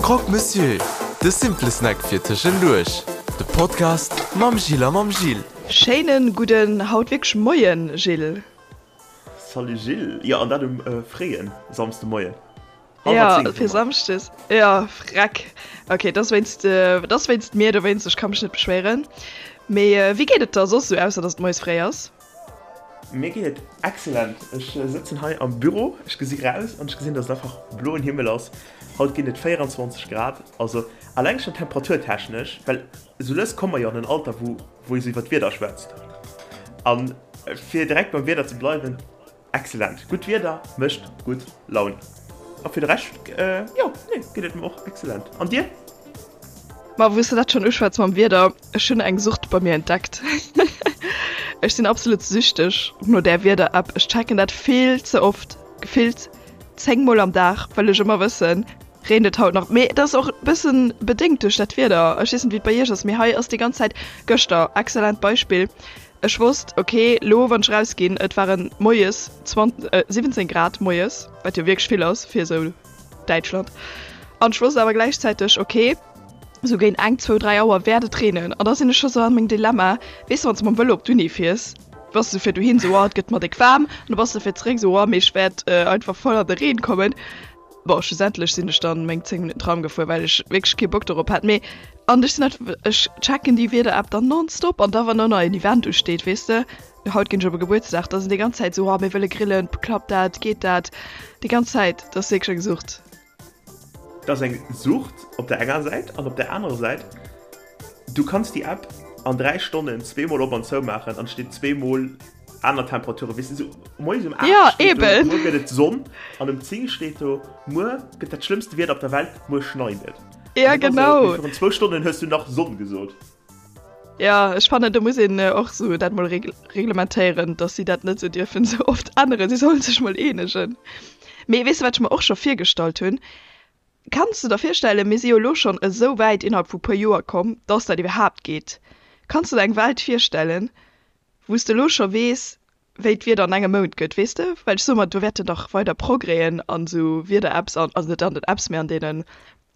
Croque Monsieur, de simple Snack fir tëschenduerch. De Podcast mam Jill a mam Gilles. Schéinen gudden, haut wierklech Moien Gilles. Salut Gilles, jo an dat um fréien Samsdemoien. Jo fir Samschdes, jo freck. Ok dat ass wéinst, dat ass wéinst mir, dowéinst, ech ka mech net beschwéieren. Mee wéi geet et der soss sou, ausser dass et moies fréi ass? Mir geet et excellent. Ech sëtzen hei am Büro, ech gesi raus an ech gesinn, dass et einfach bloen Himmel ass. Haut ginn et 24 Grad, also alleng schonn temperaturtechnesch, well esou lues komme mer jo an en Alter, wou wou ee sou iwwer d'Wieder schwätzt. A fir direkt beim Wieder ze bleiwen, excellent! Gutt Wieder mécht gutt Laun. A fir de Rescht, jo, nee, geet et mer och excellent. An dir? Ma wou s de dat schonn uschwätz mam Wieder, ech hunn eng Sucht bei mir entdeckt. Ech sinn absolut süchteg no där Wieder-App. Ech checken dat vill ze oft, gefillt 10 mol am Dag, wëll ech ëmmer wëssen, reent et haut nach. Mee et ass och e bëssen bedéngt duerch dat Wieder. Ech weess net wéi et bei iech ass, mee hei ass déi ganz Zäit, gëschter, excellent Beispill, ech wosst, ok, lo wann ech rausginn, et waren moies 17 Grad moies, wat jo wierklech vill ass fir esou Däitschland. An ech wosst awer gläichzäiteg, ok, sou géint eng, zwou, dräi Auer wäert et reenen. An da sinn ech scho sou an mengem Dilemma, weess de, wann s de mam Vëlo op d'Uni fiers, bass de fir dohin sou, oh, et gëtt mer déck waarm. An da bass de fir zeréck sou, oh, mee ech wäert einfach voll an de Reen kommen. Bon, schlussendlech sinn ech dann meng 10 Minutten Tram gefuer, well ech wierklech kee Bock dorop hat. Mee an ech sinn einfach, ech checken déi Wieder-App dann nonstop. An da wann och nach en Event usteet, weess de, Haut ginn ech op e Gebuertsdag, da sinn déi ganz Zäit esou, oh mir wëlle grillen, klappt dat, geet dat? Déi ganz Zäit, dat ass wierklech eng Sucht. Dat ass eng Sucht op der enger Säit an op der anerer Säit, du kanns déi App an 3 Stonnen zweemol op an zou maachen an et steet zweemol aner Temperaturen, weess de, esou moies um 8 Ja, steet do, eben. muer gëtt et Sonn an um 10 steet do, muer gëtt dat schlëmmste Wieder op der Welt, muer schneit et. Ja, An dat ass esou, genau. mee virun zwou Stonnen hues du nach Sonn gesot. Ja, ech fannen do muss een och sou dat mol reglementéieren, dass si dat net sou dierfen sou oft änneren. Si sollen sech mol eenegen. Mee weess de wat ech mer och scho virgestallt hunn? Kanns de der virstellen, mir si jo elo schonn esou wäit innerhalb vu puer Joer komm, dass dat iwwerhaapt geet. Kanns de der eng Welt virstellen, wou s de elo scho weess, wéi d'Wieder an engem Mount gëtt, weess de? Well ech soe mer, do wäerten dach weider Progrèsen an esou Wieder-Apps an, also net an den Apps, mee an deene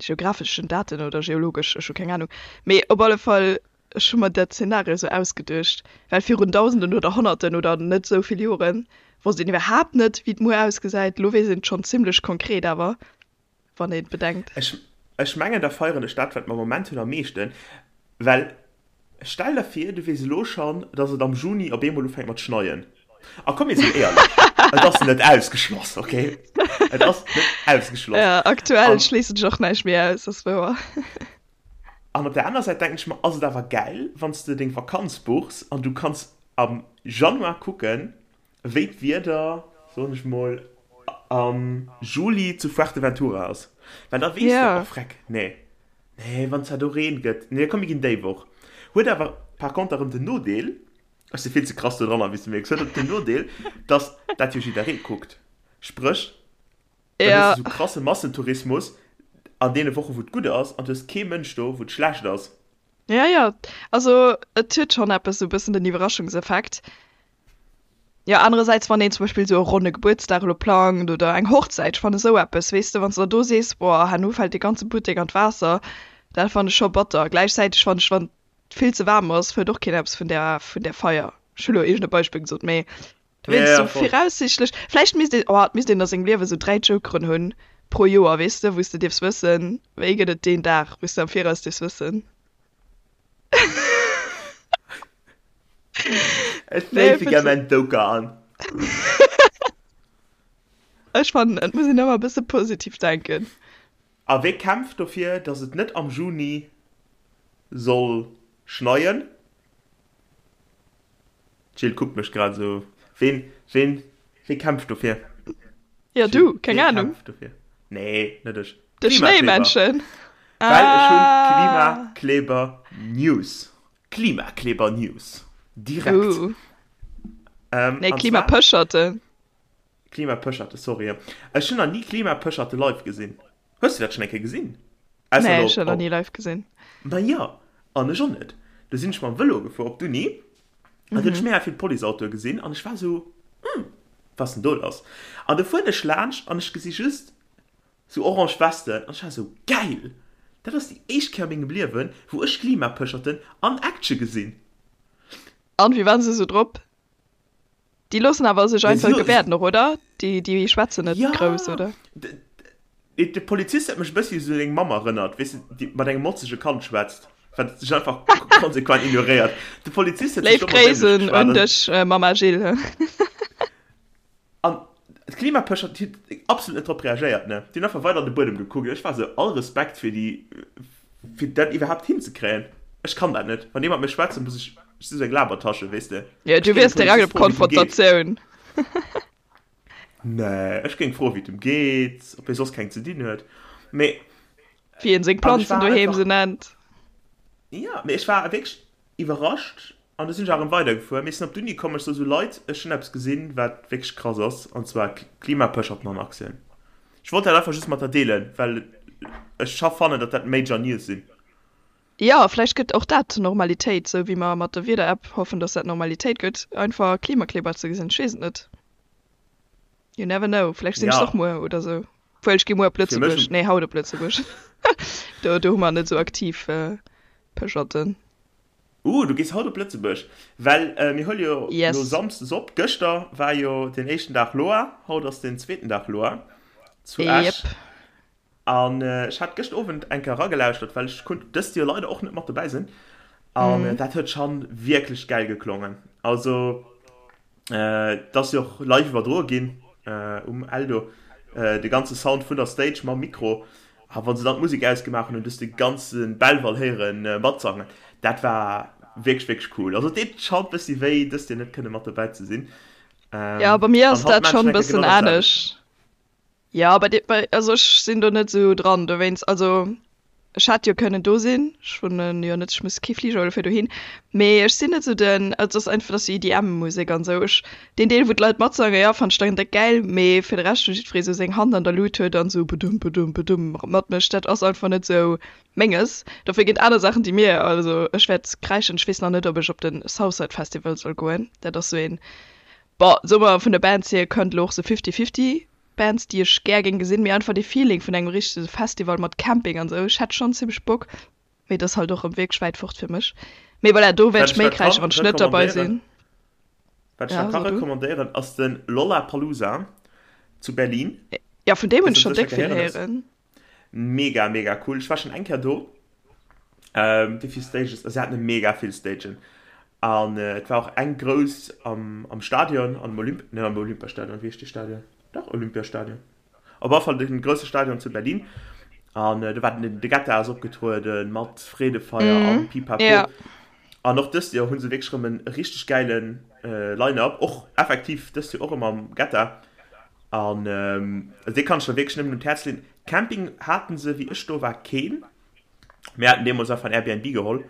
geographeschen Daten oder geologesch, ech hu keng Anung. Mee op alle Fall, ech hu mer dat Zeenario esou ausgeduecht, well virun Dausenden oder Honnerten oder net esou vill Jore wosst een iwwerhaapt net, wéi et muer ausgesäit. Elo weess een et schonn zimlech konkret awer, wann een et bedenkt. Ech, ech mengen, da feieren ech dat, wat mer am Moment hunn, am meeschten, well stell der vir, du weess elo schonn, dass et am Juni op eemol ufänkt mat schneien. A komm, mir sinn éierlech, et ass net ausgeschloss, okay? Et ass net ausgeschloss. Ja, aktuell An, schléissen ech och näischt méi aus, ass wouer. an op der aner Säit denken ech mer, ass et awer gäil, wann s de deng Vakanz buchs an du kanns am Januar kucken, Wéi d'Wieder, soen ech mol, am Juli zu Fuerteventura ass, well da weess de, oh freck, nee, nee, wann zwar do Reen gëtt, nee, komm mir ginn déi Woch. Huet awer par conter erëm den Nodeel, ech si vill ze krass do dran, wéi s de mierks, huet och den Nodeel, dass dat jo jidderee kuckt, spréch, dann hues de sou krasse Massentourismus an deene Woche wou et gutt ass an du hues kee Mënsch do wou et schlecht ass. Ja, jo, also et huet schonn eppes, sou e bëssen den Iwwerraschungseffekt. Jo, anerersäits, wann een zum Beispill esou e ronne Gebuertsdag elo plangt oder eng Hochzäit, ech fannen esou eppes, weess de, wann s de da do sees, boah, herno fält dee ganze Buttek an d'Waasser, dat fannen ech scho batter. Gläichzäiteg fannen ech, wann et vill ze waarm ass, huet och keen eppes vun där, vun där Feier. Ech hu lo iergend e Beispill gesot, mee du Ja, wéinst ja, esou voll. viraussiichtlech, vläicht misst een, oh, et misst een a sengem Liewe esou 3 Jokeren hunn pro Joer, weess de, wou s de dierfs wëssen, wéi gëtt et deen Dag, wou s de am Viraus dierfs wëssen. Ech féife gär mäin Doker an. Ech fannen, et muss een ëmmer e bësse positiv denken. A wee kämpft dofir, datt et net am Juni soll schneien? D'Jill kuckt mech grad esou. Ween, ween, wee kämpft dofir? Ja, du, keng Ahnung. Wee kämpft dofir? Nee, net ech. De Schnéimännchen. Well ech hunn Klimakleber News. Klimakleber News. Direkt. Uh. Nee, Klimapëscherten. Klimapëscherte, sorry. Ech hunn nach ni Klimapëscherte live gesinn. Hues du dat schonn eng Kéier gesinn? Nee, ech hunn dat nach ni live gesinn. Ma jo, an ech och net. Du sinn ech mam Vëlo gefuer op d'Uni an du hunn ech mega vill Policeautoe gesinn an ech war esou, Hm, wat ass denn do lass? An du fueren ech laanscht an ech gesi just. Sou orange Westen an ech war sou, geil! Dat ass déi éischt Kéier a mengem Liewen, wou ech Klimapëscherten an Action gesinn. An, wéi waren se sou drop? Déi loossen awer sech einfach gebäerden och, oder? Déi, déi schwätzen net grouss, oder? Jo, de Polizist huet mech e bëssi un seng Mamm erënnert, weess de, déi mat engem motzege Kand schwätzt, wat sech einfach konsequent ignoréiert. De Polizist huet sech Léif och mat Gréissen un dech, Mamma Jill. An d'Klimapëscher, déi hunn absolut net drop reagéiert, ne? Déi hunn einfach weider an de Buedem gekuckt. Ech war esou, all Respekt fir déi, fir dat iwwerhaapt hinzekréien. Ech kann dat net. Wann ee mat mir schwätzt, muss ech, ech si sou eng Labertasche, weess de. Jo, Ech du géing wiers dem direkt Polizist op froen, wéi et em geet. Konfrontatioun. Nee, ech géing froen, wéi et em geet, ob hie soss keng ze dinn huet. Mee, Wéi een seng an ech Planzen war doheem einfach, se nennt. jo, mee ech war wierklech iwwerrascht an du sinn ech awer erëm weidergefuer. Mir sinn op d'Uni komm, ech sou, sou Leit, ech hunn eppes gesinn, wat wierklech krass ass, an zwar Klimapëscherten an Aktien. Ech wollt dat einfach just mat der deelen, well ech scho fannen, datt dat major News sinn. Jo, vläicht gëtt och dat Normalitéit, sou wéi mer mat der Wieder-App hoffen, datt dat Normalitéit gëtt, einfach Klimakleber ze gesinn. Ech weess et net. You never know, vläicht sinn ech Ja. och muer oder sou. Obwuel, ech gi muer op Fir mech Lëtzebuerg, nee haut op Lëtzebuerg, do do hu mer net sou aktiv Pëscherten. Uh, du gees haut op Lëtzebuerg? Well mir huele jo lo Yes. samsdes op. Gëschter war jo den éischten Dag Loa, haut ass den zweeten Dag Loa zu Esch. Yep. An ech hat gëscht Owend eng Kéier eragelauschtert, well ech konnt dëst Joer leider och net mat dobäi sinn. An dat huet schan wierklech gäil geklongen. Also Et ass jo och live iwwerdroe ginn um Eldo, de ganze Sound vun der Stage mam Mikro. A wa se dann d'Musek ausgemaach hunn, hunn du de ganze Belval héiere matsangen. Dat war wierklech, wierklech cool. Also et deet schonn e bëssi wéi, dëst Joer net kënne mat dobäi ze sinn. Jo, bei mir An ass haut dat maachen ech schonn eng e Kéier bëssen genau dat selwecht. anescht. Jo, bei dir, bei, also ech sinn do net esou dran dowéinst. Also ech hätt jo kënnen do sinn, ech wunnen jo net, ech muss kee Fliger huele fir dohin, mee ech sinn net esou den, also et ass einfach, dat ass jo EDM-Musek an esou, ech, deen Deel wou d'Leit matsangen, jo, fannen ech dann déck gäil, mee fir de Rescht, wou jiddweree esou seng Hand an der Lut huet an esou bedum bedum bedum matmécht, dat ass einfach net esou menges. Dofir ginn et aner Saachen déi mir, also ech wäert kräischen, ech weess nach net ob ech op de Southside Festival soll goen, dat ass esou een, bon, soe mer vun de Bands hier kënnt elo och esou fifty fifty Bands déi ech gär géing gesinn, mee einfach dee Feeling vun engem richtege Festival mat Camping an sou, ech hätt schonn zimmlech Bock, mee et ass halt och rëm wierklech wäit fort fir mech. Mee voilà, do wäert Wat ech ech méi da kräischen, kann wann ech net derbei recommandéieren, sinn. wat ech Ja, da ka so du. recommandéieren, ass de Lollapalooza zu Berlin. Ja, vun deem hunn Dës ech huet schonn sécher déck vill gehéieren hues. héieren. Mega, mega cool. Ech war schonn eng Kéier do. Ähm, wéi vill Stages? Also, se haten mega vill Stagen. An äh, et war och eng grouss am, am Stadion, am Olymp, net am Olympiastadion, wéi heescht dee Stadion? Dach, Olympiastadion. Op alle Fall den grousse Stadion zu Berlin. An äh, do war den, de Guetta ass opgetrueden mat Freedefeier an Mhm. Pipapo. Ja. An och dëst Joer hu se wierklech erëm en richteg gäilen äh, Line-Up. Och effektiv dëst Joer och erëm am Guetta. An ähm, dee kann ech der wierklech nëmmen un d'Häerz leeën. Camping haten se, wéi ech do war, keen. Mir haten deemools einfach en Airbnb geholl.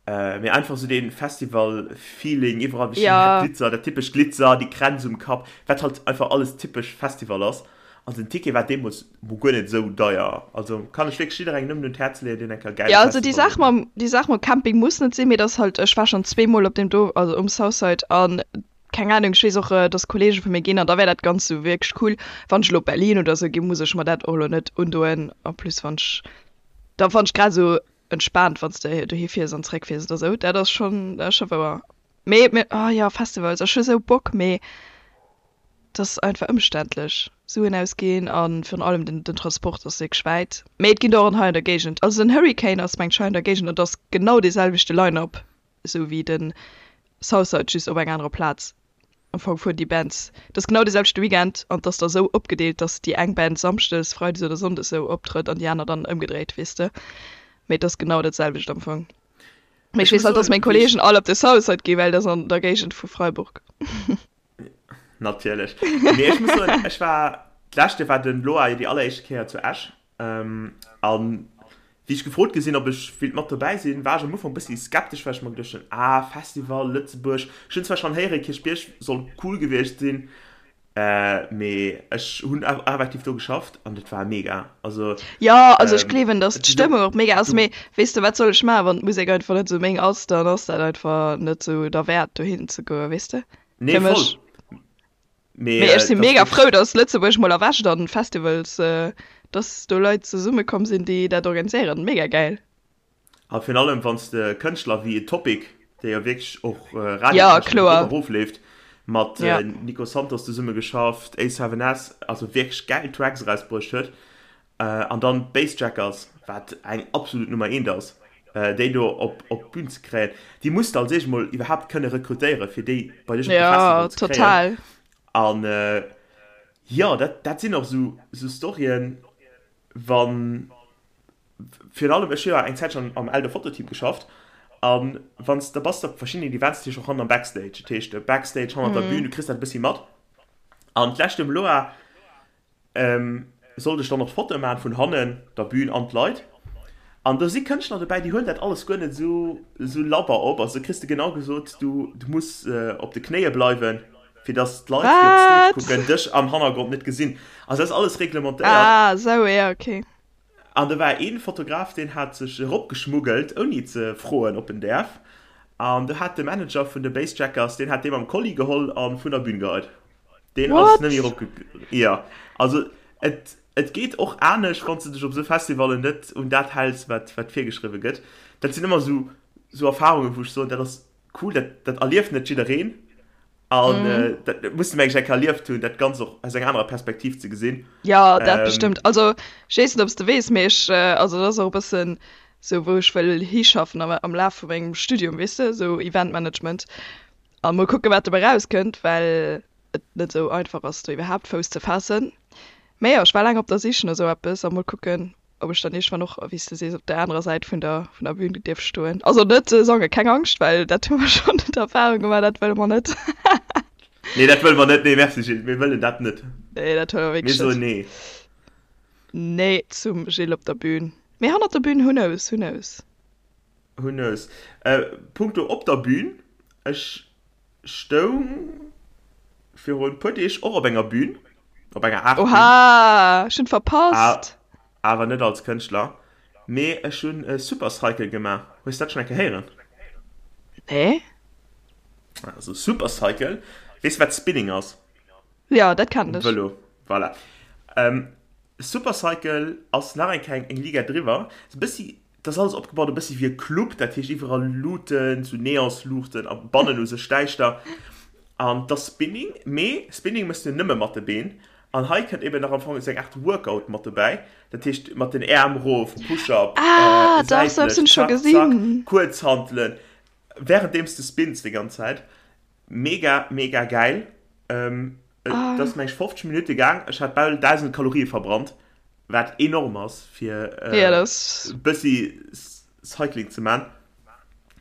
Äh, mee einfach sou dee Festival-Feeling, iwwerall wéi Ja. Glitzer, dat typescht Glitzer, déi Kränz um Kapp, wat halt einfach alles typesch Festival ass. An den Ticket war deemools mol guer net esou deier. Also kann ech wierklech jidderengem nëmmen un d'Häerz leeën, deen eng Kéier gäile Ja, also déi Festival Saach wëll mam, déi Saach mam Camping muss net sinn, mee et ass halt, ech war schonn zweemol op deem do, also um Southside an keng Ahnung, ech weess och, dass Kollege vu mir ginn an da wär dat Ganzt sou wierklech cool. Wann ech elo op Berlin oder sou ginn, muss ech mer dat och elo net undoen. En plus wann ech, da fann ech grad esou entspaant, wann s de dohi fiers an zeréck fiers oder sou, dat ass schonn, dat ass scho wouer. Mee, mee, oh jo, Festivals, ech hu sou Bock, mee et ass einfach ëmständlech, Suen ausginn a virun allem den, den Transport ass wierklech wäit. Mee et ginn der och hei an der Géigend, also den Hurricane ass mengt ech hei an der Géigend an et ass genau dee selwechte Line-up. Esou wéi den Southside, just op enger anerer Plaz. Am Fong fueren déi Bands, et ass genau dee selwechte Weekend an et ass da sou opgedeelt, dass déi eng Band samschdes, freides oder sonndes sou optrëtt an déi aner dann ëmgedréit, weess de. Mee et ass genau dat selwecht am Fong. Mee ech Ech weess muss halt, dass soen, meng wéi ech Kolleegen all op de Southside ginn, well dat ass an der Géigend vu Freiburg. Natierlech. Mee ech muss soen, ech war, d'lescht Joer war den Loa jo déi alleréischte Kéier zu Esch. An wéi ech gefrot gi sinn, ob ech wéilt mat dobäi sinn, war ech am Ufank e bëssi skeptesch, well ech mer geduecht hunn, ah, Festival, Lëtzebuerg. Ech hunn zwar schonn héieren, Kierchbierg soll cool gewiescht sinn, mee ech hunn effektiv do geschafft an et war mega. Also, Jo, also ech gleewen, datt d'Stëmmung och mega ass, mee weess de, wat soll ech maachen, wann d'Musek einfach net esou meng ass, dann ass dat einfach net esou derwäert dohin ze goen, weess de? Nee, Fir voll. mech. Mee Mee ech si dat mega ass frou, datt Lëtzebuerg mol erwächt an Festivals. Dass do Leit zesumme komm sinn, déi dat organiséieren. Mega gäil. A virun allem wann s de Kënschtler wéi Topic, dee jo wierklech och radiotechnesch erop a rof leeft, mat Nico Santos zesumme geschafft, A7S, also wierklech gäil Tracks erausbruecht huet, an dann d'Bassjackers, wat eng absolut Nummer eent ass, déi do op d'Bün ze kréien, déi muss de als éischt mol iwwerhaapt kënne rekrutéieren, fir déi bei dech op de Festival ze kréien. An jo, dat, dat sinn och esou, esou Storyen, wann, virun allem, ech hu jo eng Zäitchen am Eldo Fototeam geschafft, a wann s de bass op verschiddenen Events, dat heescht och hannen am Backstage, dat heescht Backstage hannert der Bühn, du kriss dat e bëssi mat. An d'lescht um Loa sollt ech dann och d'Fotoe maachen vun hannen der Bühn an d'Leit. An do si Kënschtler dobäi, déi huelen dat alles guer net esou esou labber op. Also do kriss de genau gesot, du du muss op de Knéie bleiwen, fir datt d'Leit, déi op d'Stage kucken, dech am Hannergrond net gesinn. Also dat ass alles reglementéiert. Ah esou, ja okay. An do war ee Fotograf, deen hat sech eropgeschmuggelt, ouni ze froen, ob en däerf. An do hat de Manager vun de Bassjackers, deen hat dee mam Kolli geholl a vun der Bün geheit. Deen ass net méi erop. Jo, also et Et geet och anescht, wann s de dech op esou Festivallen net un dat häls, wat wat virgeschriwwe gëtt. Dat sinn ëmmer esou esou Erfarungen, wou ech soen, dat ass cool, dat dat erlieft net jiddereen. An dat muss de mengen ech eng Kéier erlieft hunn, dat Ganzt och aus enger anerer Perspektiv ze gesinn. Jo, dat bestëmmt. Also ech weess net, ob s de weess, mee ech, also dat ass och e bëssen esou, wou ech wëll hischaffen am am Laf vu mengem Studium, weess de, esou Eventmanagement. A mol kucken, wat dobäi erauskënnt, well et net esou einfach ass do iwwerhaapt Fouss ze faassen. Mee jo, ech war laang op der Sich no esou eppes a mol kucken, ob ech dann iergendwann och, wéi s de sees, op der anerer Säit vun der vun der Bühn dierf stoen. Also net sangen, keng Angscht, well dat hu mer schonn d'Erfarung gemaach, dat wëlle mer net. Nee, dat wëlle mer net. Nee, merci Gilles, mir wëllen dat net. Nee, dat wëlle mer wierklech net. Mir soen nee. Nee zum Gilles op der Bühn. Mee hannert der Bühn, who knows, who knows. Who knows. Punkto op der Bühn, ech Stoung virun puer Deeg och op enger Bühn, op enger Aart Bühn. Oha, ech hunn verpasst! Awer net als Kënschtler, mee ech hunn e Supercycle gemaach. Hues dat schonn eng Kéier héieren? Nee. Also Supercycle, weess de wat Spinning ass? Jo, dat kennen ech. Vëlo, voilà. Supercycle ass nach eng Kéier eng Liga driwwer, e bëssi Et ass alles opgebaut e bëssi wéi e Club, dat heescht iwwerall Luuten, sou Neonsluuchten a bannen u sech däischter. An et ass Spinning, mee Spinning méchs du nëmme mat de Been. An hei kënnt eben nach am Fong esou eng Aart Workout mat dobäi, dat heescht mat den Äerm erof, Push-up, Ah, dach, sou eppes hunn säitlech, ech scho zack, zack, gesinn. Kuerzhantelen, wärenddeems du spinns déi ganz Zäit. Mega, mega gäil. Et ass meng ech 50 Minutte gaang, ech hat bal 1.000 Kalorie verbrannt. Wat enorm ass fir ja, das... bëssi Cycling ze man.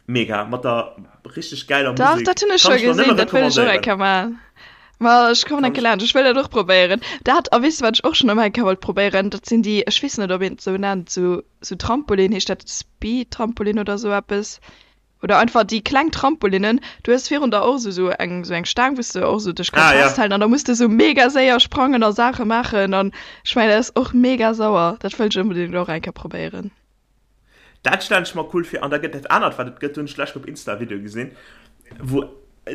Mega, mat der richteg gäiler Musek. Dach, dat hunn ech scho gesinn, dat wëll ech och eng Kéier man. Ma ech kommen eng Kéier laanscht, ech wëll dat och probéieren. Dat, a weess de wat ech och schonn ëmmer eng Kéier wollt probéieren? Dat sinn déi, ech weess net ob een et esou nennt, sou sou Trampolin, heescht dat Speed-Trampolin oder esou eppes? Oder einfach déi kleng Trampolinnen, du hues virun der och esou sou eng sou eng Staang wou s de och sou dech kanns Ah, ja. festhalen an da muss de sou mega séier sprangen a Saache maachen an ech mengen dat ass och mega sauer. Dat wëll ech onbedéngt och eng Kéier probéieren. Dat stellen ech mer cool vir. An da gëtt dat anert wat et gëtt, do hunn ech d'lescht op Insta e Video gesinn, wou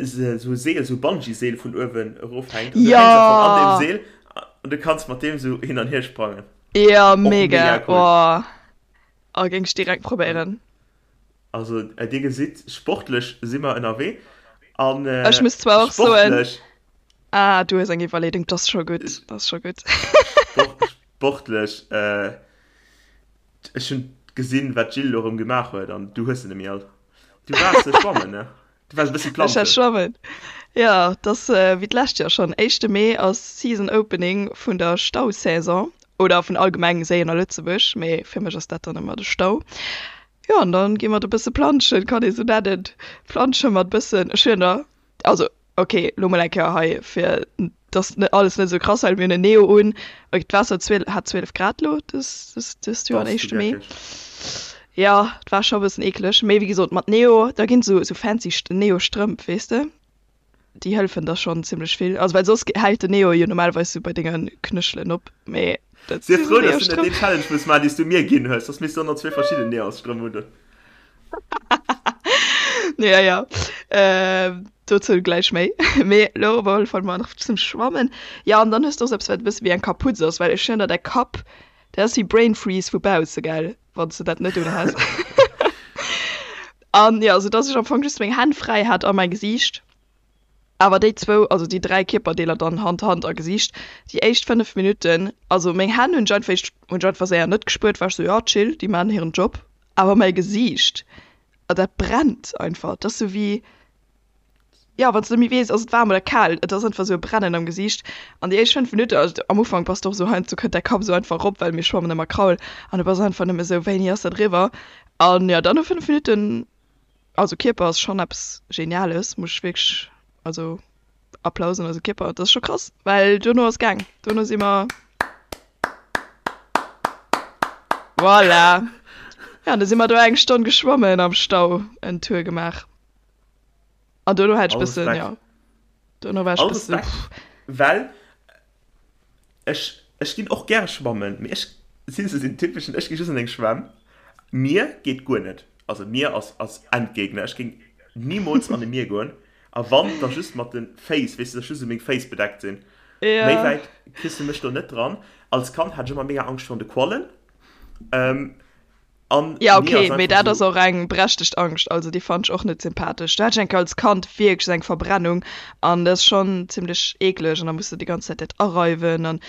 se sou e Seel, sou e Bungee-Seel vun uewen erofhänkt an du hänks am Fong an deem Jo! Seel an du kanns mat deem sou hin an hier sprangen. Jo, Och mega, mega cool. oh, oh géing ech direkt probéieren. Also dir gesitt, sportlech si mer ënnerwee. An Ech muss zwar och soen, sportlech. Ah, du hues eng Iwwerleedung, 't ass scho gutt, 't ass scho gutt. Sportlech, ech hunn gesinn, wat d'Jill elo erëm gemaach huet an du hues se net méi all. Du waars schwammen, ne? Du waars e bëssi Ech war planschen. schwammen, jo. 't ass wéi d'lescht Joer schonn, éischte Mee ass Season Opening vun der Stausaison oder vun allgemeng Séien a Lëtzebuerg, mee fir mech ass dat dann ëmmer de Stau. Jo, an dann gi mer do bësse planschen, kann ee sou nennen. Plansche mat bëssen, ech hunn der, also ok, lo mol eng Kéier hei, fir dass net alles net esou krass well mir hunn en Neo un, ok, d'Waasser huet hat 12 Grad lo dës, dës, dëst Joer an Bass du éischte Mee. geckeg. Jo, et war scho bëssen eekeleg, mee wéi gesot, mat Neo, da ginn sou, sou fancy Neo-Strëmp, weess de. Déi hëllefen der schonn zimmlech vill. Also well soss hält den Neo jo normalerweis sou bei denge Knéchelen op, mee dat Sief frou, dass du net deen Challenge muss maachen, dee s du mir ginn hues, soss misst du och nach zwee verschidden Neosstrëmp undoen. Ja, ja, dozou gläich méi. Mee elo op alle Fall mol nach zum Schwammen. Jo, an dann hues du och sou eppes, wat e bësse wéi eng Kaputz ass, well ech hunn der däi Kapp. Dat ass wéi Brain Freeze vu bausse, gell, wann s de dat net unhas. An jo, sou dass ech am Fong just meng Hänn fräi hat a mäi Gesiicht. Awer déi zwou, also déi 3 Kierperdeeler dann, Hand, Hand a Gesiicht, déi éischt 5 Minutten, also meng Hänn hunn ech einfach éischt, hunn ech einfach séier net gespuert, war ech sou, jo chill, déi maachen hiren Job. Awer mäi Gesiicht, dat brennt einfach, dat ass sou wéi, jo wann s de net méi weess, ass et waarm oder kal, et ass einfach sou e Brennen am Gesiicht. An déi éischt 5 Minutten, also am Ufank bass de och sou, heiansdo kënnt däi Kapp sou einfach erop, well mir schwammen ëmmer Kraul, an du bass einfach nëmme sou, wéini ass dat eriwwer? An jo, dann no 5 Minutten Also Kierper ass schon eppes Geniales, muss ech wierklech, also Applaus un eise Kierper, dat ass scho krass, well duerno ass gaang, duerno si mer, voilà, ja, du si mer do eng Stonn geschwommen am Stau, en Tour gemaach an duerno hat ech bëssen, ja, duerno war ech bëssen, pff. Well Ech, ech ginn och gäre schwammen, mee ech sinn esou den typeschen, ech gi just an eng Schwämm. Mier geet guer net, also Mier ass, ass Endgegner. Ech géing nimools an e Mier goen, a wann, da just mat de Féiss, weess de, dass just esou meng Féiss bedeckt sinn. Méi wäit kriss de mech do net dran. Als Kand hat ech ëmmer mega Angscht virun de Quallen. An ja okay, mee dat ass och eng berechtegt Angscht, also déi fand ech och net sympathesch. Do hat ech eng Kéier als Kand wierklech esou eng Verbrennung an dat ass schonn zimmlech eekleg an da muss de déi ganz Zäit dat areiwen an et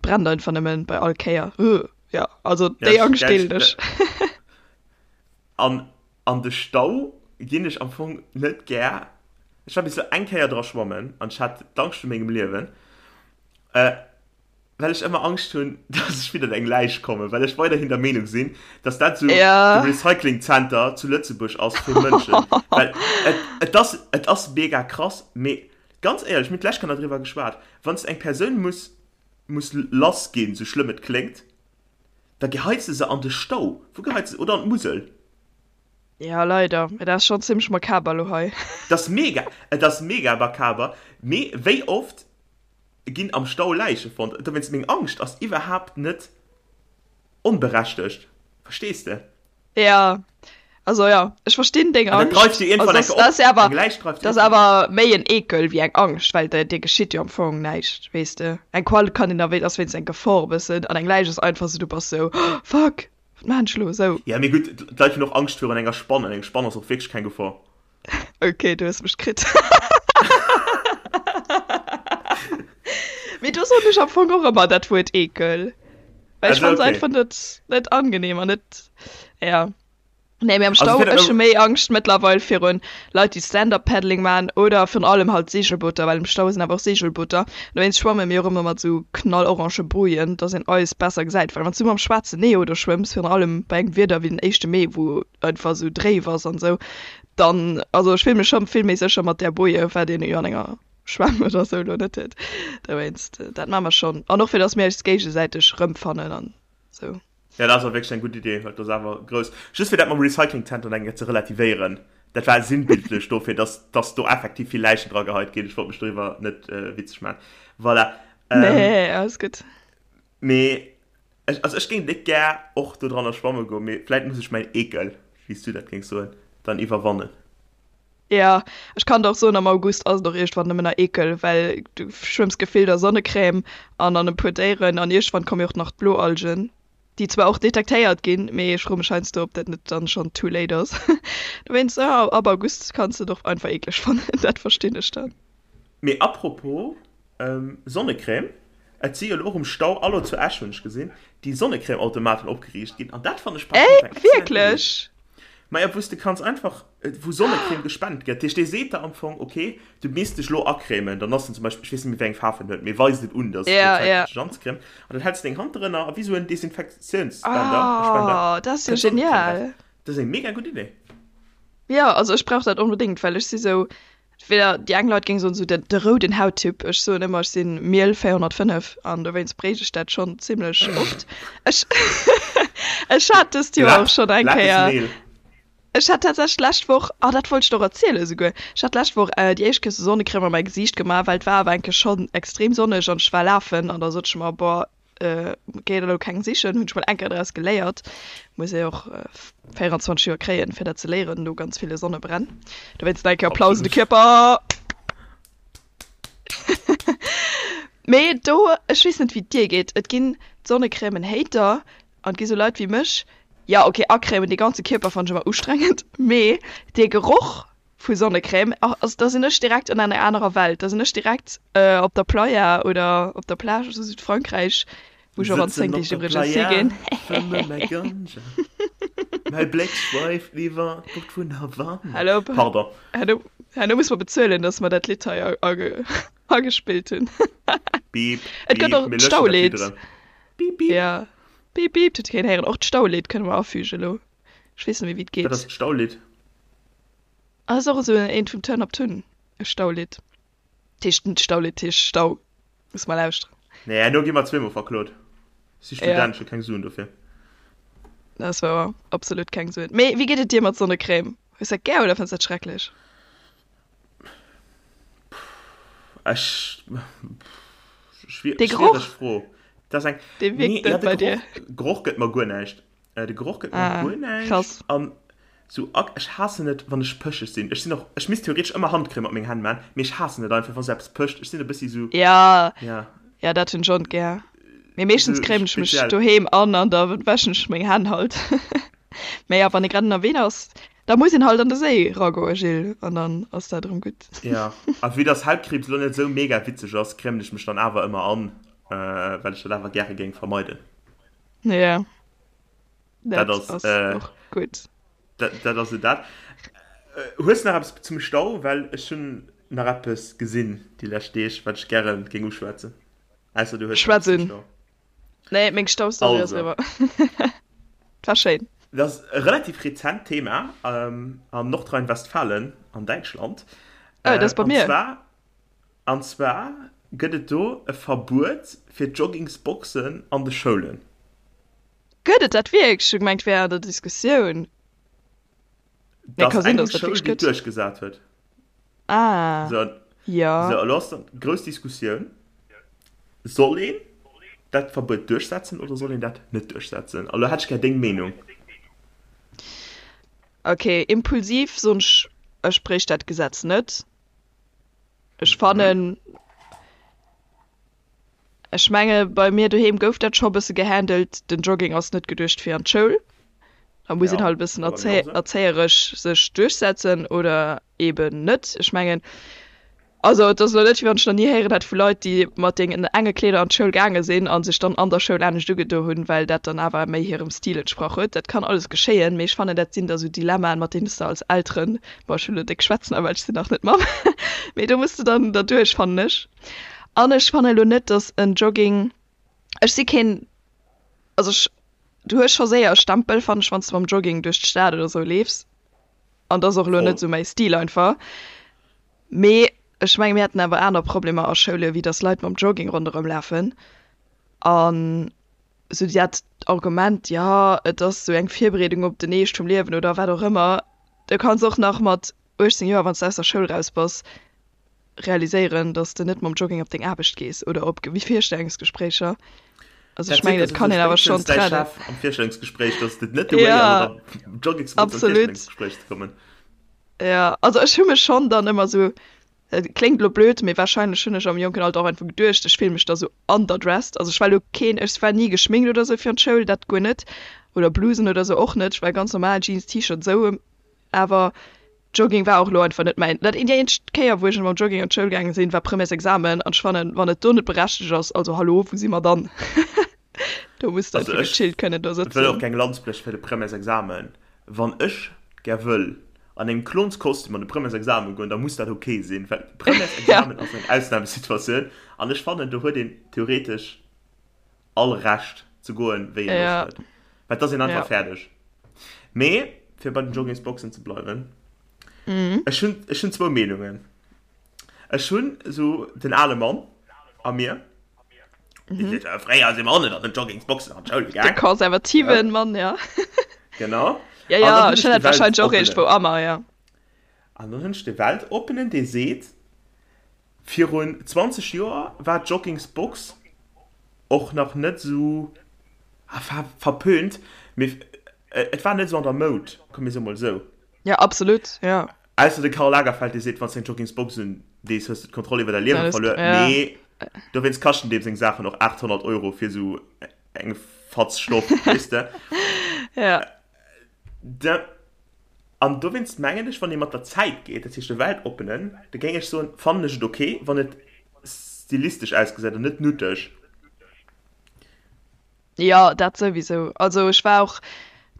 brennt einfach nëmmen bei all Kéier. Ugh, ja also déi Angscht deelen ech. An an de Stau ginn ech am Fong net gär. Ech war bis elo eng Kéier dra schwammen an ech hat d'Angscht vu mengem Liewen. Well ech ëmmer Angscht hunn, dass ech widder eng Läich kommen, well ech weiderhin der Meenung sinn, dass dat esou Ja. de Recycling Center zu Lëtzebuerg ass fir Mënschen. Well et, et ass, et ass mega krass, mee ganz éierlech, mir hunn d'lescht Kéier driwwer geschwat, wann s de eng Persoun muss, muss lass ginn, sou schlëmm et kléngt, da geheits de se an de Stau. Wou geheits de se? Oder an d'Musel. Ja, leider. Mee dat ass schonn zimmlech makaber elo hei. Et ass mega, et ass mega makaber, mee wéi oft ginn am Stau Läiche fonnt. Dowéinst, meng Angscht ass iwwerhaapt net onberechtegt. Verstees de? Ja, also ja, ech verstinn deng An dat dreift Angscht. jo iergendwann Also eng das, Kéier das op. ass ja awer, Eng Läich dreift das ass iergendwann op. awer méi en Ekel wéi eng Angscht, well der dir geschitt jo am Fong näischt, weess de. Eng Qual kann een da wéi, ass wéinst eng Gefor e bëssen, an eng Läich ass einfach sou, du bass sou, oh, fuck, wat maan ech elo, sou. Ja, mee gutt, d'Leit hunn och Angscht virun enger Spann, an eng Spann ass och wierklech keng Gefor. Ok, du hues mech kritt. Mee do soen ech am Fong och ëmmer dat Wuert Ekel. Well ech Also fand se okay. einfach net, net angenehm an net, ja. Nee, mee am Also Stau, fir ech hu méi Angscht mëttlerweil virun Leit, déi Stand-up-Paddling maachen oder virun allem halt Segelbooter, well am Stau sinn awer och Segelbooter. Dowéinst schwamme mir och ëmmer mat sou knallorange Bojen, dass een eis besser gesäit. Well wann s du mam schwaarzen Neo do schwëmms, virun allem bei engem Wieder wéi den éischte Mee, wou einfach sou dréif ass an sou, dann, also ech fill mech schon vill méi sécher mat där Boje, wat een jo an enger Schwämm oder sou lo net huet. Dowéinst, dat maache mer schon. An och fir dass mir eis géigesäiteg rëmfannen an sou. Ja, dat ass och wierklech eng gutt Idee, well et ass awer grouss. Just fir dat mam Recycling Center nach eng Kéier ze relativéieren, dat war sinnbildlech dofir, dass, dass do effektiv vill Läichen dra geheit ginn. Ech wollt mech doriwwer net witzeg maachen. Voilà. Nee, alles gutt. Mee ech, also ech géing déck gär och do dranner schwamme goen, mee vläit muss ech mäin Eekel, wéi s du dat géings soen, dann iwwerwannen. Jo, ech kann der och soen, am August ass et och iergendwann nëmmen nach Eekel, well du schwëmms gefillt a Sonnecrème an an e puer Déieren an iergendwann komme jo och nach d'Bloalgen, déi zwar och detektéiert ginn, mee ech froe mech heiansdo, ob dat net dann schonn too late ass. Dowéinst, jo, ab August kanns de et och einfach eekleg fannen, dat verstinn ech dann. Mee apropos Sonnecrème, et si jo elo och um Stau Allo zu Esch, hunn ech gesinn, déi Sonnecrème-Automaten opgeriicht ginn an dat fannen ech par Ey, contre eng excellent Idee. wierklech? Maja, wou s de kanns einfach, wou Sonnecrème gespent gëtt. Dat heescht, dee seet der am Fong, ok, du misst dech elo acrèmen, dann ass en zum Beispill, ech weess net méi wéi eng Faarf en huet, mee weist et un, dass et Ja, elo Zäit ja. gëtt sech anzecrèmen an dann häls de deng Hand drënner a wéi esou en Desinfektiounsspender, Spender, Oh, dat ass jo kënnt Sonnecrème eraus. genial. Dat ass eng mega gutt Idee. Jo, also ech brauch dat onbedéngt, well ech si sou, Weder déi eng Leit géing soen esou de rouden Hauttyp, ech soen ëmmer ech sinn Miel 405 an dowéinst bréich ech dat schonn zimlech oft. Ech ech hat dëst Joer och schonn eng Kéier, ech hat tatsächlech d'lescht Woch, ah dat wollt ech der och erzielen esouguer, ech hat d'lescht Woch déi éischt Kéier sou Sonnecrème a mäi Gesiicht gemaach, well et war awer eng Kéier schonn extrem sonneg an ech war lafen an da sot ech mer, boah Géi elo keng sichen, hunn ech mol eng Kéier draus geléiert. Muss ee och 24 Joer kréien, fir dat ze léieren, no ganz ville Sonnebränn. Dowéinst nach eng Kéier Applaus un de Absolut. Kierper! Mee do, ech weess net wéi et dir geet, et ginn d'Sonnecrèmen Hater an et gi sou Leit wéi mech, jo ok acrèmen de ganze Kierper fannen ech ëmmer ustrengend, mee dee Geroch vu Sonnecrème, also da sinn ech direkt an enger anerer Welt, da sinn ech direkt op der Playa oder op der Plage zu Südfrankräich, wou ech och an 10 Sëtzen op Deeg der iwwregens Playa, higinn. fëmme mäi Ganja, mäi Bléck schweift iwwer d'Bucht vun Havanna. Hallo, Pardon. herno, herno muss mer bezuelen, dass mer dat Lidd hei agespillt hunn. Beep, Et gëtt beep, och mir löschen dat Lidd d'Staulidd. erëm. Beep, beep. Ja, beep, beep, dat huet keen héieren. Och d'Staulidd kënne mer afügen elo. Ech weess net méi, wéi et Wat ass geet. d'Staulidd? Ass och esou eent vum Turn Up Tun, e Staulidd. Dat heescht net Staulidd, dat heescht Stau. Muss mal lauschteren. Nee, herno gi mer zweemol verklot. Ech si Ja. Student, ech hu keng Suen dofir. Dat ass wouer, absolut keng Suen. Mee wéi geet et dir mat Sonnecrème? Hues dat gär oder fënns dat schrecklech? Ech, Dee schwiereg Geroch, Fro. Dat ass eng, dee nee, wierkt ja, net de bei dir. Geroch, Geroch gëtt mer guer näischt. Äh, de Geroch gëtt mer Ah, guer näischt. krass. An sou ak, ech haassen et, wann ech pëscheg sinn. Ech sinn och, ech misst theoretesch ëmmer Handcrème op meng Hänn man, mee ech haassen et einfach, wa sou eppes pëscht. Ech sinn e bëssi sou, Ja, ja, ja, dat hunn ech och net gär. Mee meeschtens sou crèmen ech mech speziell. doheem an an da wäschen ech meng Hänn halt. Mee ja, wann ee grad ënnerwee ass, da muss een halt an de Séi ragoe, Gilles, an dann ass dat erëm gutt. Ja, a vue dass Hautkriibs lo net sou mega witzeg ass, crèmen ech mech dann awer ëmmer an, well ech dat awer gäre géing vermeiden. Ja, Dat dat ass, ass äh, och gutt. dat, dat ass et dat. Äh, hues nach eppes zum Stau? Well ech hunn nach eppes gesinn déi lescht Deeg, wat ech gäre géing uschwätzen. Ausser du hues nach eppes Schwätz zum un. Stau. Nee, meng Staustory ass Also. eriwwer. War schéin. Dat ass e relativ rezent Thema ähm, an Nordrhein-Westfalen an Däitschland. Oh, dat ass Äh, bei an mir. zwar, an zwar gëtt et do e Verbuet fir Joggingsboxen an de Schoulen. Gëtt et dat wierklech? Ech hu gemengt, wär an der Diskussioun. Nee, Dat ka ass sinn, eng dass dat Schoul, wierklech déi et gëtt. duerchgesat huet. Ah, So, jo. so, elo ass dann grouss Diskussioun, Soll een dat Verbuet duerchsetzen oder soll een dat net duerchsetzen? A lo hätt ech gär deng Meenung. Okay, impulsiv soen ech, ech bréicht dat Gesetz net. Ech fannen, ech menge bei mir doheem gouf dat scho bësse gehandelt, den Jogging ass net geduecht fir an d'Schoul. Da muss een Ja, halt e bëssen war bei mir och esou. erzéieresch sech duerchsetzen oder eben net. Ech mengen, Also et ass elo net wéi wann ech nach ni héieren hätt vu Leit déi mat deenen enge Kleeder an d'Schoul gaange sinn a sech dann an der Schoul anescht ugedo hunn, well dat dann awer méi hirem Stil entsprach huet. Dat kann alles geschéien, mee ech fannen dat sinn da sou Dilemmaen mat deenen s de als Elteren, bon ech hunn elo déck schwätzen awer ech sinn nach net Mamm, mee do muss de dann derduerch fannen ech. An ech fannen elo net datt en Jogging, ech si keen, also ech, du hues scho séier e Stempel fannen ech wann s de mam Jogging duerch d'Stad oder sou leefs an dat ass och elo net Voll. sou mäi Stil einfach. Mee ech menge mir hätten awer aner Problemer a Schoule wéi datt Leit mam Jogging ronderëm lafen. An esou dat Argument, jo et ass esou eng Virbereedung op den Eescht vum Liewen oder wat och ëmmer, du kanns och nach mat 18 Joer, wann s de aus der Schoul raus bass, realiséieren, datt s de net mam Jogging op deng Aarbecht gees oder op Virstellungsgespréicher. Also ech Dat seet mengen, der et kann souwisou een awer schonn spéitstens däi trennen. Chef am Virstellungsgespréich, datt et net de Way ass, Ja, mat der Joggingsbox an absolut. d'Virstellungsgespréich ze kommen. Ja, also ech hu mech schonn dann ëmmer sou, et kléngt elo blöd, mee wahrscheinlech hunn ech am jonken Alter och einfach geduecht, ech fill mech da sou underdressed. Also ech war elo keen, ech war ni geschminkt oder sou fir an d'Schoul, dat guer net, oder Blusen oder sou och net, ech war ganz normal Jeans, T-Shirt sou, awer Jogging war och elo einfach net mäin. Dat déi eenzeg Kéier wou ech mam Jogging an d'Schoul gaange sinn, war Premièresexamen an ech fannen, wann et do net berechtegt ass, also hallo, wou si mer dann? Do muss de Also einfach ech gechillt kënnen do wëll och sëtzen. keng Lanz bréche fir de Premièresexamen. Wann ech gär wëll an engem Klonskostüm an de Premièresexamen goen, da muss dat ok sinn, well Ja. Premièresexamen ass eng Ausnamesituatioun an ech fannen, do huet een theoretesch all Recht ze goen, wéi een Loscht Ja. huet, well et ass een einfach Ja. fäerdeg. Mee fir bei den Joggingsboxen ze bleiwen, Mhm. ech hunn, ech hunn zwou Meenungen. Ech hunn esou den ale Mann a mir, dee seet, Fréier si mer och net an den Joggingsboxen an d'Schoul De gaang. konservativen Mann, ja. Genau. Ja, An dann ja, hunn ech ech hunn de dat wahrscheinlech och iergendwou Weltoppenen. a mer, ja. An dann hunn ech de Weltoppenen, dee seet, Virun 20 Joer war d'Joggingsbox och nach net esou verpönt, mee et war net esou an der Moud, komm mir soe mol esou. Ja, absolut, ja. Ausser de Karl Lagerfeld, dee seet, wann s de eng Joggingsbox un dees, hues de d'Kontroll iwwer däi Liewe verluer. Ja. Mee. Dowéinst kaschten deem seng Saachen och 800 Euro fir esou eng Fatz Stoff, weess de? Ja. Da, an dowéinst mengen ech, wann ee mat der Zäit geet, dat heescht de Weltoppenen, da géing ech soen, fannen ech et ok, wann et stilistesch ausgesäit an net nuteg. Jo, dat souwisou. Also ech war och,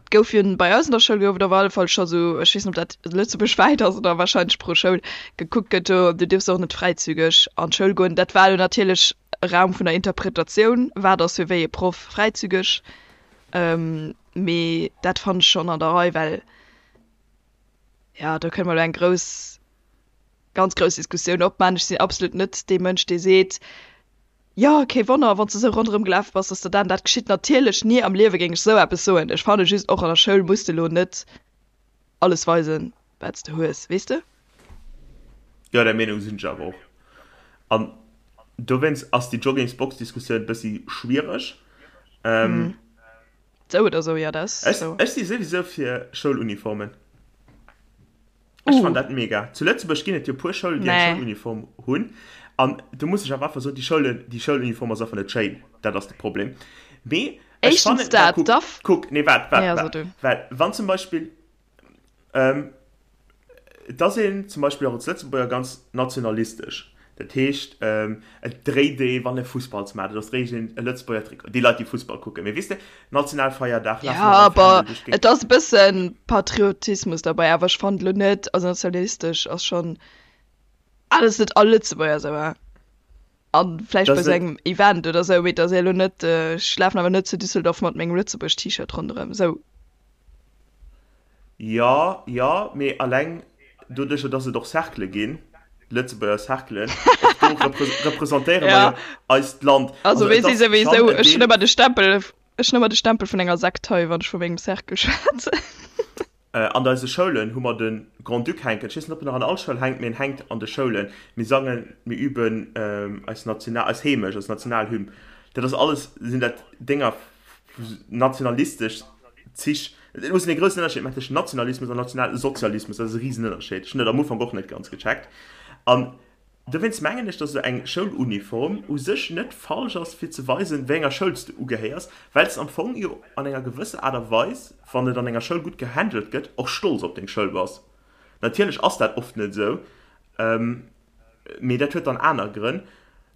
et gouf jo bei eis an der Schoul gouf et op alle Fall scho sou, ech weess net ob dat lëtzebuergwäit ass oder wahrscheinlech pro Schoul, gekuckt gëtt, do du dierfs och net fräizügeg an d'Schoul goen. Dat war elo natierlech e Raum vun der Interpretatioun, wat ass fir wéi e Proff fräizügeg, mee dat fannen ech schonn an der Rei, well jo do kënne mer elo eng grouss, ganz grouss Diskussioun opman. Ech sinn absolut net dee Mënsch dee seet, Jo, kee Wonner, wann s de sou ronderëm gelaf bass, dass der dat an dat geschitt. Natierlech, ni am Liewe géing ech sou eppes soen. Ech fanne just, och an der Schoul muss de lo net alles weisen, wat s de hues, weess de? Jo, där Meenung sinn ech awer och. An dowéinst ass déi Joggingsbox-Diskussioun bëssi schwiereg. Sou oder sou, jo, dat ass sou. Ech si souwisou fir Schouluniformen. Ech fannen dat mega. Zu Lëtzebuerg ginn et jo puer Schoulen, déi eng Schouluniform hunn. An do muss ech awer einfach soen, déi Schoulen, déi Schouluniform ass einfach net schéin. Dat ass de Problem. Mee ech fannen, well kuck, kuck, nee waart, waart, waart, well wann zum Beispill, et ass een zum Beispill och als Lëtzebuerger ganz nationalistesch. Dat heescht, et dréit ee wann e Fussballsmatch ass, dréit een e Lëtzebuerger Trikot. Déi Leit, déi Fussball kucken. Mee weess de, Nationalfeierdag lafe mer mam Fändel duerch d'Géigend. Et ass e bësse Patriotismus derbäi, awer ech fannen elo net, also nationalistesch ass schonn, ah, dat ass net all Lëtzebuerger esou, hein. A vläicht bei esou engem Event oder esou, mee et ass elo net, ech lafen awer net zu Düsseldorf mat mengem Lëtzebuerg-T-Shirt ronderëm, esou. Jo, jo, mee alleng doduercher, dass et och Cerclë ginn, Lëtzebuerger Cerclen, och do representéiere mer jo eist Land. Also mir si souwisou, ech hunn ëmmer de Stempel, ech hunn ëmmer de Stempel vun enger Sekt hei, wann ech vu mengem Cercle schwätzen. An eise Schoulen hu mer de Grand-Duc hänken. Ech weess net, ob en nach an all Schoul hänkt, mee en hänkt an de Schoulen. Mir sangen, mir üben eis National, eis Heemecht, eis Nationalhymn. Dat ass alles, sinn dat Dénger, nationalistesch Zich. Et muss een e groussen Ënnerscheed maachen tëschent Nationalismus an Nationalsozialismus. Dat ass e Risenënnerscheed. Ech hunn dat am Ufank och net ganz gecheckt. An dowéinst mengen ech, datt esou eng Schouluniform u sech net falsch ass, fir ze weisen, wéi enger Schoul s de ugehéiers, well s de am Fong jo an enger gewësser Aart a Weis, wann et an enger Schoul gutt gehandelt gëtt, och stolz op deng Schoul bass. Natierlech ass dat oft net esou, mee dat huet dann aner Grënn.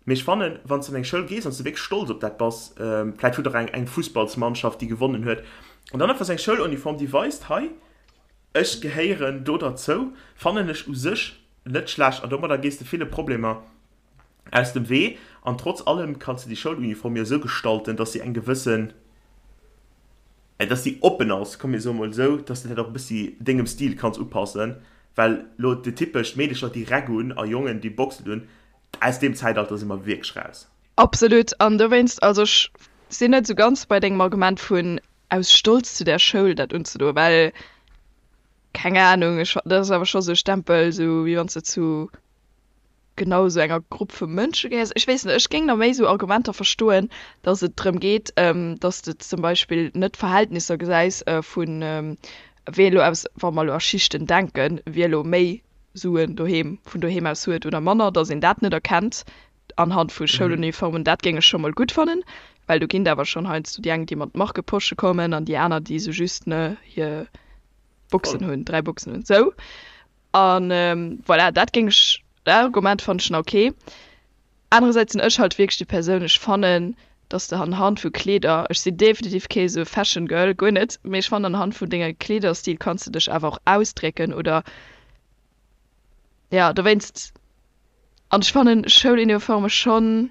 Mee ech fannen, wann s de an eng Schoul gees an s de wierklech stolz op dat bass, vläit hutt der eng eng Fussballsmannschaft, déi gewonnen huet, an dann einfach sou eng Schouluniform, déi weist, hei, ech gehéieren do derzou, fannen ech u sech net schlecht. An domadder gees de ville Problemer aus dem Wee. An trotz allem kanns de déi Schouluniform jo esou gestalten, dass si eng gewëssen, dass si oppen ass, komm mir soe mol esou, dass de dat och e bëssi dengem Stil kanns upassen, well lo déi typesch Meedecher, déi Räck un a Jongen, déi Boxen un, Aus deem Zäitalter si mer wierklech raus. Absolut. An dowéinst, also ech sinn net esou ganz bei dengem Argument vun aus Stolz zu där Schoul dat unzedoen, well, keng Ahnung, ech, dat ass awer scho sou e Stempel, sou wéi wann s de zu genau esou enger Grupp vu Mënsche gehéiers. Ech weess net, ech géing nach méi esou Argumenter verstoen, datt et drëm geet, datt s de zum Beispill net d'Verhältnisser gesäis vun wee elo aus, wa mer elo a Schichten denken, wie elo méi Suen doheem, vun doheem aus huet oder manner, datt een dat net erkennt anhand vu Schouluniformen, dat géing ech scho mol gutt fannen, well do ginn et awer schonn heiansdo déi eng, déi mat Markeposche kommen an déi aner, déi esou just, ne, hir Boxen hunn, 3 Boxen hunn, sou. A voilà, dat géing ech, dat Argument fannen ech nach ok. Anerersäits sinn ech halt wierklech déi Persoun, ech fannen, dass de anhand vu Kleeder, ech sinn definitiv kee sou Fashion Girl, guer net, mee ech fannen anhand vun denge Kleederstil kanns de dech awer och ausdrécken oder jo dowéinst. An ech fannen Schouluniforme schonn,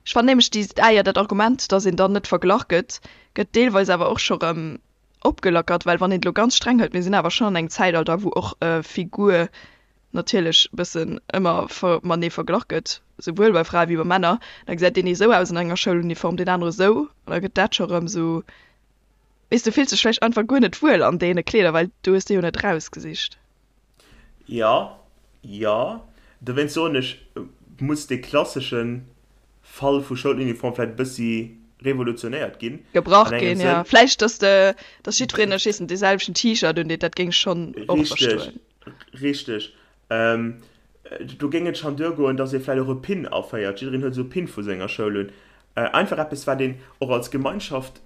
ech fannen nämlech déi, ah jo dat Argument, dass een dann net verglach gëtt, gëtt deelweis awer och scho rëm opgelackert, well wann een et elo ganz streng hëlt, mir sinn awer schonn an engem Zäitalter wou och Figur natierlech bëssen ëmmer matenee verglach gëtt, souwuel bei Frae wéi bei Männer, da gesäit deen ee sou aus an enger Schouluniform, deen anere sou, an da gëtt dat scho rëm sou, weess, du fills dech vläicht einfach guer net wuel an deene Kleeder, well du hues déi jo net rausgesicht. Jo, jo, dowéinst soen ech, muss dee klasseschen Fall vu Schouluniform vläit e bëssi revolutionéiert ginn. Gebrach ginn, jo. Vläicht, dass de, dass jiddwereen, ech weess net, dee selwechten T-Shirt undeet, dat géing ech schonn och verstoen. Richteg, richteg. Do géing et schonn duergoen, datt ee vläicht och e Pin aféiert. Jiddereen huet esou e Pin vu senger Schoul un. Einfach eppes, wat een och als Gemeinschaft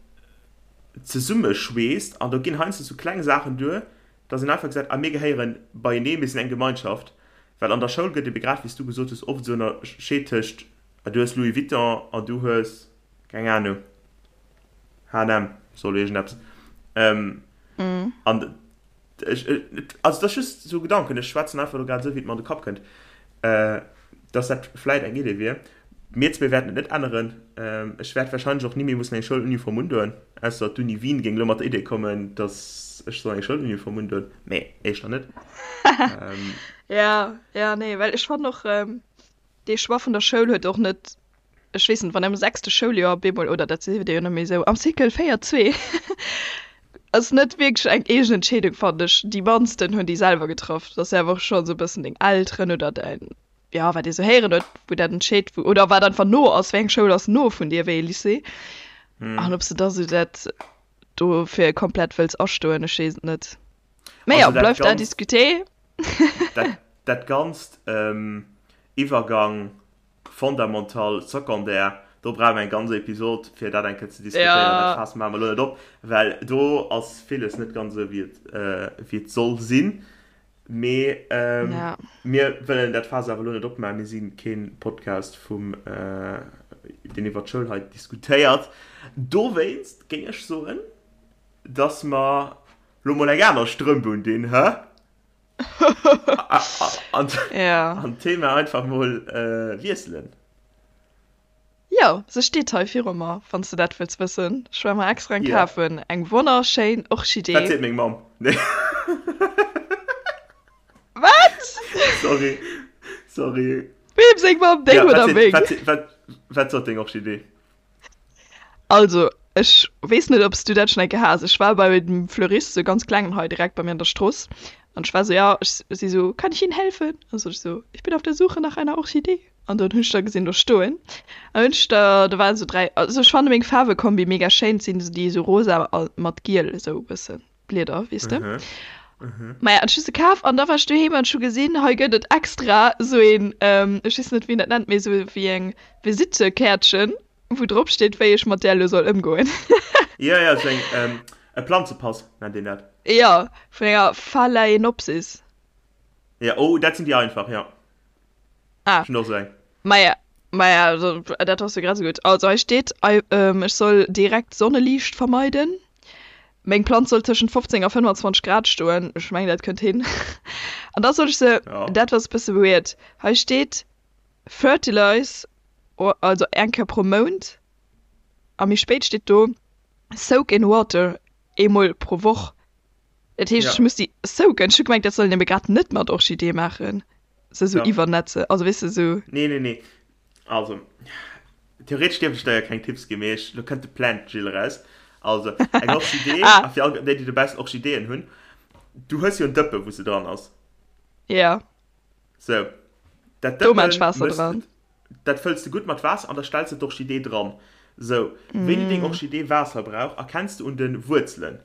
zesummeschweesst. An do ginn heiansdo sou kleng Saachen duer, datt een einfach gesäit, ah mir gehéiere beienee, mir sinn eng Gemeinschaft. Well an der Schoul gëtt ebe grad, wéi s du gesot hues, oft esou ënnerscheet tëscht, ah du hues Louis Vuitton an du hues, keng Anung, H&M, soll iergendeppes. An Ech, also dat ass just esou e Gedanken, ech schwätzen einfach elo grad esou, wéi et mer an de Kapp kënnt, dass dat vläit eng Idee wier. Mir zwee wäerten et net änneren. Ech wäert warscheinlech och ni méi mussen eng Schouluniform undoen, ausser d'Uni Wien géing elo mat der Idee kommen, dass ech soll eng Schouluniform undoen, mee éischter net. Ja, ja, nee, well ech fannen och, dee Choix vun der Schoul huet och net ech weess net, wann am sechste Schouljoer op eemol, oder dat siwe jo net méi esou, am Cycle 4, 2, ass net wierklech eng eegen Entscheedung, fannen ech. Déi mannsten hunn déi selwer getraff. Dat ass jo awer och schonn esou e bëssen deng Elteren oder däin, jo, wat ee sou héieren huet, wou dat entscheet, wou, oder wat einfach no ass, wéi eng Schoul ass no vun dir, wéi ee Lycée. An ob s de da sou dat dofir komplett wëlls astoen, ech weess et net. Mee jo, bleift à discuter. Dat, dat Ganzt, Iwwergang Fondamental, Secondaire, do brauche mer eng ganz Episod, fir dat eng Kéier ze diskutéieren. Dat Faass maache mer elo net op, well do ass villes net ganz esou, wéi et, wéi et soll sinn. Mee mir wëllen dat Faass awer elo net opmaachen. Mir si kee Podcast vum, deen iwwer d'Schoul hei diskutéiert. Dowéinst géing ech soen, dass mer elo mol eng aner Strëmp undinn, hä? An Ja. d'Thema einfach mol wiesselen. Jo, se steet hei viru mer, wann s de dat wëlls wëssen. Ech war mer extra eng Ja. kafen. Eng wonnerschéin Wat Orchidee. seet meng Mamm? Nee. Wat? Sorry, sorry. Weem seng Mamm? Deng Ja, wat oder seet, meng? wat seet, wat, wat sot deng Orchidee? Also, ech weess net, ob s du dat schonn eng Kéier has. Ech war bei dem Fleurist, sou ganz klengen hei direkt bei mir an der Strooss. An ech war sou, ja, ech si sou, Kann ich Ihnen helfen? An sot ech sou, Ich bin auf der Suche nach einer Orchidee. An dann hunn ech der gesinn do stoen. An hunn ech der, do waren sou 3, also ech fanne meng Faarwekombi mega schéin, et sinn esou déi sou rosa a mat giel esou e bëssen Blieder, weess de. Maja, an ech hu se kaf an da war ech doheem an ech hu gesinn, hei gëtt et extra sou een, ech weess net wéi een dat nennt, mee sou wéi eng Visittekäertchen, wou drop steet, wéi ech mat där elo soll ëmgoen. Jo, jo, sou eng, e Planzepass nennt een dat. Jo, vun enger Phalaenopsis. Jo, oh, dat sinn déi einfach, jo. Ah. Ech hunn och sou eng. Maja, maja, dat ass jo grad esou gutt. Also hei steet, ech soll direkt Sonneliicht vermeiden. Meng Planz soll tëschent 15 a 25 Grad stoen. Ech mengen, dat kënnt hin. An da soll ech se, dat ass e bësse weird, hei steet fertilize, also eng Kéier pro Mount. A méi spéit steet do soak in water, eemol pro Woch. Dat heescht, ech muss déi soaken. Ech hu gemengt, dat soll een ebe grad net mat Orchidee maachen, se esou iwwernetze, also weess de, esou. Nee, nee, nee. Also, theoretesch dierft ech der jo keng Tipps ginn, mee ech, lo kënnt de Plant Jill eraus. Also, eng Orchidee, a fir all déi, déi dobaussen Orchideeën hunn, du hues jo en Dëppe wou se dran ass. Ja. Sou, dat Do maan ech Dëppen Waasser mëss, dran. dat fëlls de gutt mat Waasser an da stells de d'Orchidee dran. Sou, wéini deng Orchidee Waasser brauch, erkenns de un de Wuerzelen,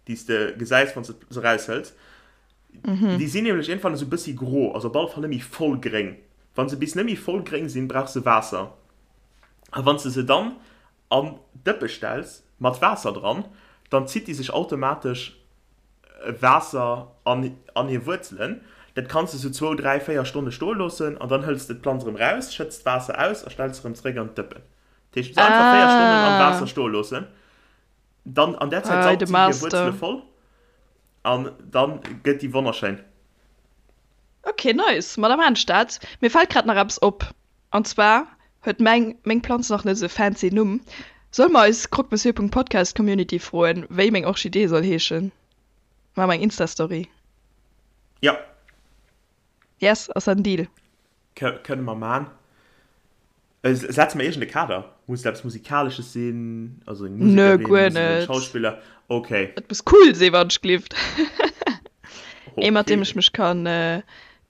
déi s de gesäis, wann s de se eraushëls. Déi sinn nämlech iergendwann esou e bëssi gro, also op alle Fall net méi voll gréng. Wa se bis net méi voll gréng sinn, brauch se Waasser. A wann s de se dann an d'Dëppe stells mat Waasser dran, dann zitt déi sech automatesch Waasser an an hir Wuerzelen. Dat kanns de sou zwou, dräi, véier Stonne stoe loossen an dann hëls de d'Planz erëm raus, schëtts d'Waasser aus a stells se erëm zeréck an d'Dëppen. Dat heescht, se einfach véier Stonnen am Waasser stoe loossen, dann an där Zäit saugt si hir Wuerzele voll an dann gëtt déi wonnerschéin. Ok nice, ma da maan ech dat. Mir fällt grad nach eppes op, an zwar huet meng meng Planz nach net esou fancy Numm. Solle mer eis croquemessieur.podcast Community froen wéi meng Orchidee soll heeschen? Maache mer eng Instastory. Jo. Yes, ass dat en Deal? Kënne mer maan. Setze mer iergend e Kader? Muss et eppes Musikalesches sinn? Also eng Nö, Musekerin, guer muss et en net. Schauspiller? Ok. Et muss cool sinn, wann ech glift. Ee mat deem Ok. ech mech kann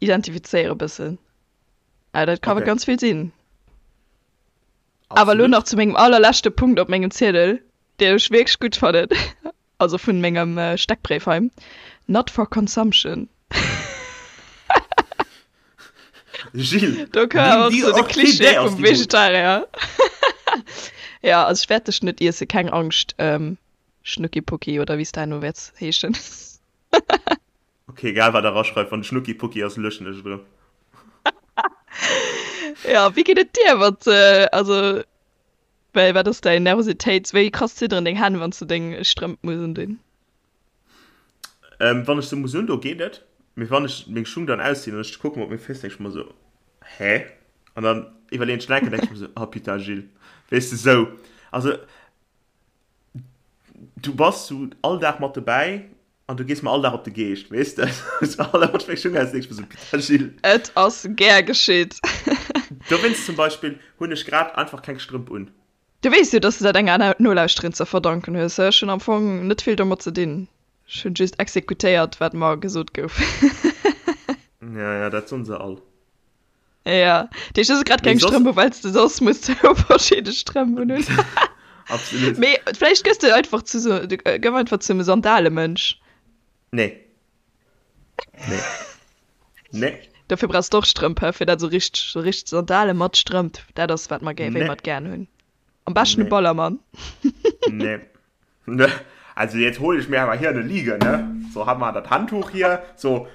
identifizéiere bëssen. Ah, dat ka Ok. ganz vill sinn. Awer elo Absolut. nach zu mengem allerleschte Punkt op mengem Ziedel, deen ech wierklech gutt fannen, also vun mengem Steckbréif hei, Not for consumption. Gilles, Do koum nimm awer och die sou de Klischee Orchidee aus vum dem Mund. Vegetarier. Ja, also ech wäert dech net iessen, keng Angscht, Schnuckipucki oder wéi s de herno wäerts heeschen. Ok, egal wat der raschreift, wann Schnuckipucki ass, löschen ech et erëm. Ja, wéi geet et dir mat, also wéi, wat ass däin Nervositéits, wéi krass zidderen deng Hänn, wann s de deng Strëmp muss undinn? Ähm, wann ech se muss undoen, geet et, mee wann ech meng Schung dann auszinn an ech kucken op meng Féiss, denk ech mer esou, Hä? An dann iwwerleeën ech nach eng Kéier, denk ech mer esou, Oh putain, Gilles, weess de, sou, also du bass sou all Dag mat dobäi an du gees mer all Dag op de Geescht, weess de, sou all Dag wann ech meng Schung auszinn, denk ech mer sou, Putain, Gilles. Et ass gär geschitt. Dowéinst zum Beispill hunn ech grad einfach keng Strëmp un. Du weess jo, dass de dat enger Nolauschterin ze verdanken hues. Ech hunn am Fong net vill domat ze dinn. Ech hunn just exekutéiert, wat mer gesot gouf. Ja, ja, dat soen se all. Ja, dat heescht, du hues grad Mee keng soss. Strëmp u, well s de soss muss zwou verschidde Strëmp unhunn. Absolut. Mee vläicht gëss de einfach zu sou, du gëff einfach zum Sandalemënsch. Nee. Nee. Nee. Dofir brauchs de och Strëmp, hä? Fir dat esou richteg, sou richteg Sandale mat Strëmp, dat ass wat mer gär, wéi Nee. mer et gären hunn. Am beschten e Nee. Ballermann. Nee. Ne. Also jetzt hol ich mir aber hier eine Liege, ne? So haben wir das Handtuch hier. So,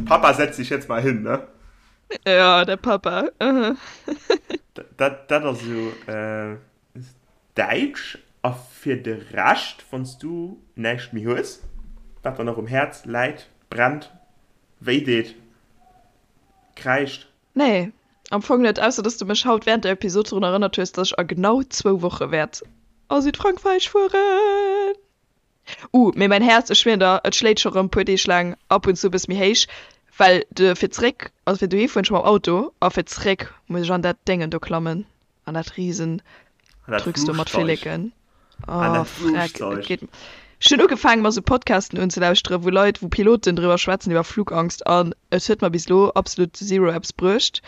Papa setz dich jetzt mal hin, ne? Ja, der Papa. Mhm. Dat, dat ass esou, äh, Däitsch a fir de Rescht, wann s du näischt méi hues, wat der nach um Häerz läit, brennt, wéi deet, kräischt? Nee, am Fong net, ausser dass du mech haut während der Episod drun erënnert hues, dass ech a genau zwou Woche wäert a Südfrankräich fueren. Uh, mee mäin Häerz, ech schwieren der, et schléit scho rëm puer Deeg laang ab und zu e bësse méi héich, well de fir zréck, also fir dohi fueren ech mam Auto a fir zréck muss ech an dat Déngen do klammen. An dat riesen Drücks do mat Flilleken. Oh, freck, et geet. Ech hunn ugefaangen mer sou Podcasten unzelauschteren, wou Leit, wou Piloten driwwer schwätzen iwwer Flugangst an et huet mer bis elo absolut zero eppes bruecht.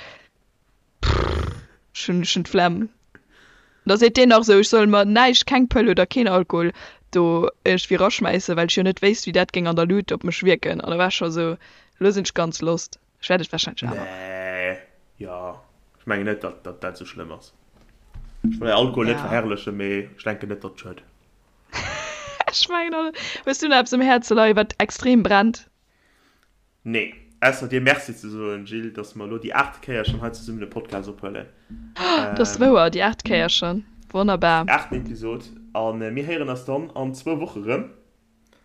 Ech hunn, ech hunn d'Flemm. Da seet deen nach sou, ech soll mer näischt, keng Pëll oder keen Alkohol do iergendwéi raschmäissen, well ech jo net wéisst, wéi dat géing an der Luut op mech wierken. An da war ech scho sou, elo sinn ech ganz lost. Ech wäert et wahrscheinlech awer maachen. Nee, jo, ech mengen net, datt datt dat esou schlëmm ass. Ech wëll Alkohol net Ja. verherrlechen, mee ech denken net, datt et schued. Ech mengen och net. Hues du nach eppes um Häerze leien, wat extrem brennt? Nee, ausser dir Merci ze soen, Jill, datt mer elo déi aachte Kéier schonn hei zesummen e Podcast ophuelen. Dat ass wouer, déi aacht Kéier schonn. Wonnerbar. Déi aachten Episod. A mir héieren eis dann an zwou Woche rëm.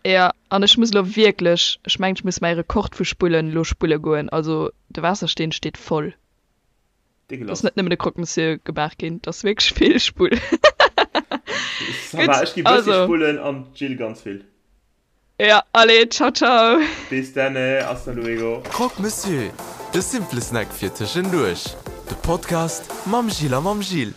Jo, an ech muss elo wierklech, ech mengen ech muss mäi Rekord vu Spullen elo spulle goen, also de Waassersteen steet voll. Et ass net nëmmen de Croque Monsieur gemaach ginn, et ass wierklech vill Spull. Ça va, ech gi bëssi spullen an d'Jill ganz vill. Jo, allez, ciao ciao. Bis denne, hasta luego. Croque Monsieur, de simple Snack fir tëschenduerch. De Podcast mam Gilles a mam Jill.